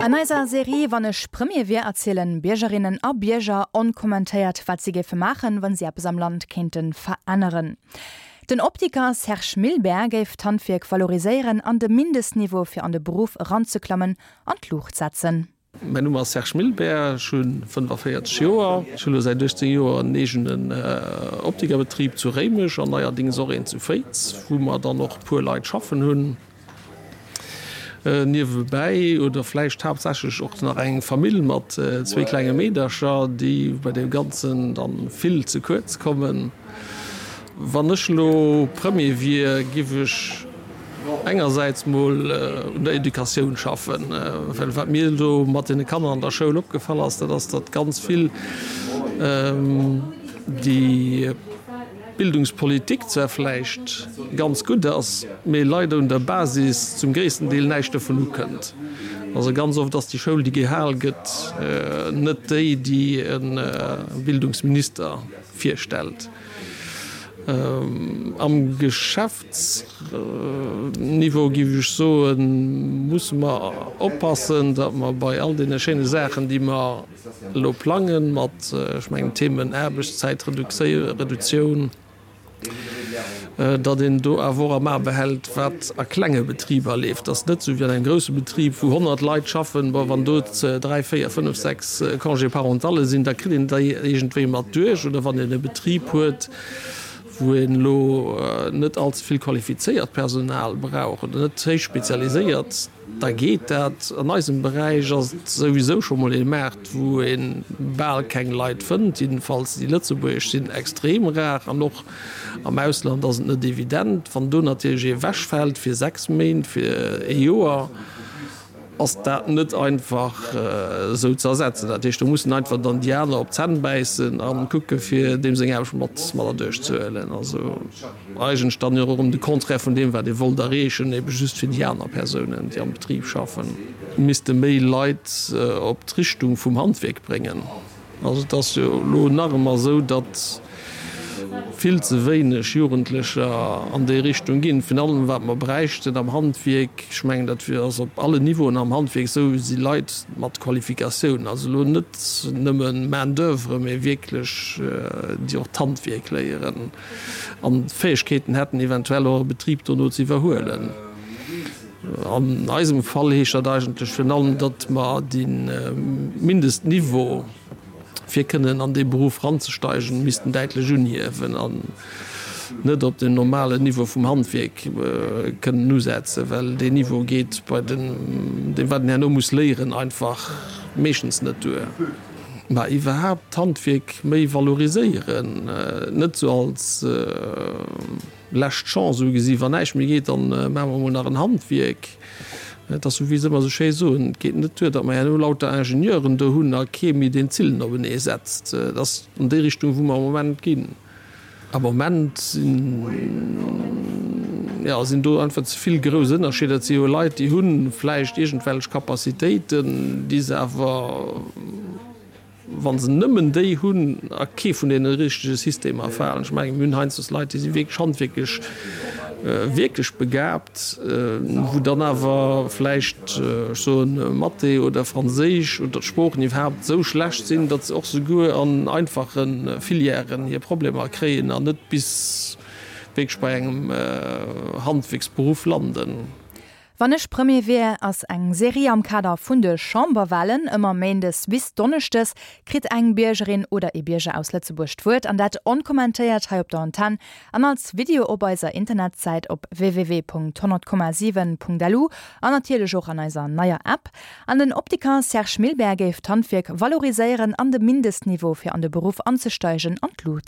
An eiser Serie Wann ech Premier wier erzielen Biergerinnen a Bierger onkommentéiert, wat si géife maachen, wann si eppes am Land kéinte veränneren. Den Optiker Serge Milbert géif d'Handwierk valoriséieren an de Mindestniveau fir an de Beruff eranzeklammen an d'Luucht setzen. Mäin Numm ass Serge Milbert, ech hu 45 Joer. Ech hu lo säit 18 Joer en eegenen Optikerbetrib zu Réimech an neierdings och een zu Féiz, wou mer dann och e puer Leit schaffen hunn. Niewebäi oder vläicht haaptsächlech och nach eng Famill mat zwéi klenge Meedercher, déi bei deem Ganzen dann vill ze kuerz kommen. Wann ech elo Premier wier, giff ech engersäits mol un der Educatioun schaffen, well wat mir elo mat deene Kanner an der Schoul opgefall ass, dat ass, datt ganz vill déi Bildungspolitik zwar vläicht ganz gutt ass, mee leider un der Basis zum gréissten Deel näischt dovun ukënnt. Also ganz oft ass déi Schoul, déi gehal gëtt, net déi, déi e Bildungsminister virstellt. Am Geschäftsniveau, géif ech soen, musse mer oppassen, datt mer bei all deene schéine Saachen, déi mer elo plangen, mat, ech mengen, Themen Aarbechtszäitreduktioun, datt een do awer och am A behält, wat a klenge Betriber leeft. Et ass net esou wéi an engem grousse Betrib, wou 100 Leit schaffen, bon, wann do dräi, véier, fënnef, sechs Congé-parentalle sinn, da kritt een déi iergendwéi mat duerch. Oder wann een e Betrib huet, wou een elo net allze vill qualifizéiert Personal brauch oder net héich spezialiséiert, Da geet dat. An eisem Beräich ass et souwisou scho mol ee Maart, wou ee bal keng Leit fënnt. Jiddefalls déi lëtzebuergesch sinn extrem rar an och am Ausland ass et net evident. Wann do natierlech ee ewechfält fir 6 Méint, fir ee Joer, ass dat net einfach esou ze ersetzen. Dat heescht, do mussen einfach dann déi aner op d'Zänn bäissen a kucke fir deem seng Aarbecht mat mat erduerch ze huelen. Also. Eigentlech dann jo och erëm de Contraire vun deem, wat ee wollt erreechen, ebe just fir déi aner Persounen, déi am Betrib schaffen. Misste méi Leit op d'Richtung vum Handwierk bréngen. Also et ass jo elo nach ëmmer esou, datt vill ze wéineg Jugendlecher an déi Richtung ginn. Virun allem wat mer bräichten am Handwierk, ech mengen dat ass op allen Niveauen am Handwierk esou, si Leit mat Qualifikatioun. Also elo net nëmme Main d'oeuvre, mee wierklech déi och d'Handwierk léieren. An d'Fäegkeeten hätten, eventuell och e Betrib dono ze iwwerhuelen. An eisem Fall heescht dat eigentlech virun allem, datt mer de Mindestniveau, fir kënnen an dee Beruff eranzesteigen, missten däitlech unhiewen an net op den normalen Niveau vum Handwierk kënnen usetzen, well deen Niveau geet bei deem, wat een herno muss léieren, einfach meeschtens net duer. Mä iwwerhaapt d'Handwierk méi valoriséieren, net sou als lescht Chance ugesi, wann näischt méi geet, dann maache mer emol nach en Handwierk. Et ass sou wéi se ëmmer sou schéi soen, et geet net duer, datt mer herno lauter Ingenieuren do hunn a kee méi deen d'Zillen openee setzt. Et ass an déi Richtung wou mer am Moment ginn. Am Moment sinn, jo, sinn do einfach ze vill grouss Ënnerscheeder. Et si jo Leit, déi hu vläicht iergendwelch Capacitéiten, déi se awer, wa se nëmmen déi hunn, a kee vun deene richtege Systemer falen. Ech mengen, mir hunn heiansdo Leit, déi si wierklech handwierklech wierklech begabt, wou dann awer vläicht, ech soen, Mathé oder Franséisch oder d'Sproochen iwwerhaapt esou schlecht sinn, datt se och souguer an einfache Filièren hir Problemer kréien an net bis wierklech bei engem Handwierksberuff landen. Wann ech Premier wier ass eng Serie am Kader vun de Chamberwahlen. Ëmmer méindes bis donneschdes kritt eng Biergerin oder ee Bierger aus Lëtzebuerg d'Wuert, an dat onkommentéiert hei op der Antenn an als Video op eiser Internetsäit op www.100,7.lu an natierlech och an eiser neier App. An den Optiker Serge Milbert géif d'Handwierk valoriséieren an de Mindestniveau fir an de Beruff anzesteigen an d'Lut.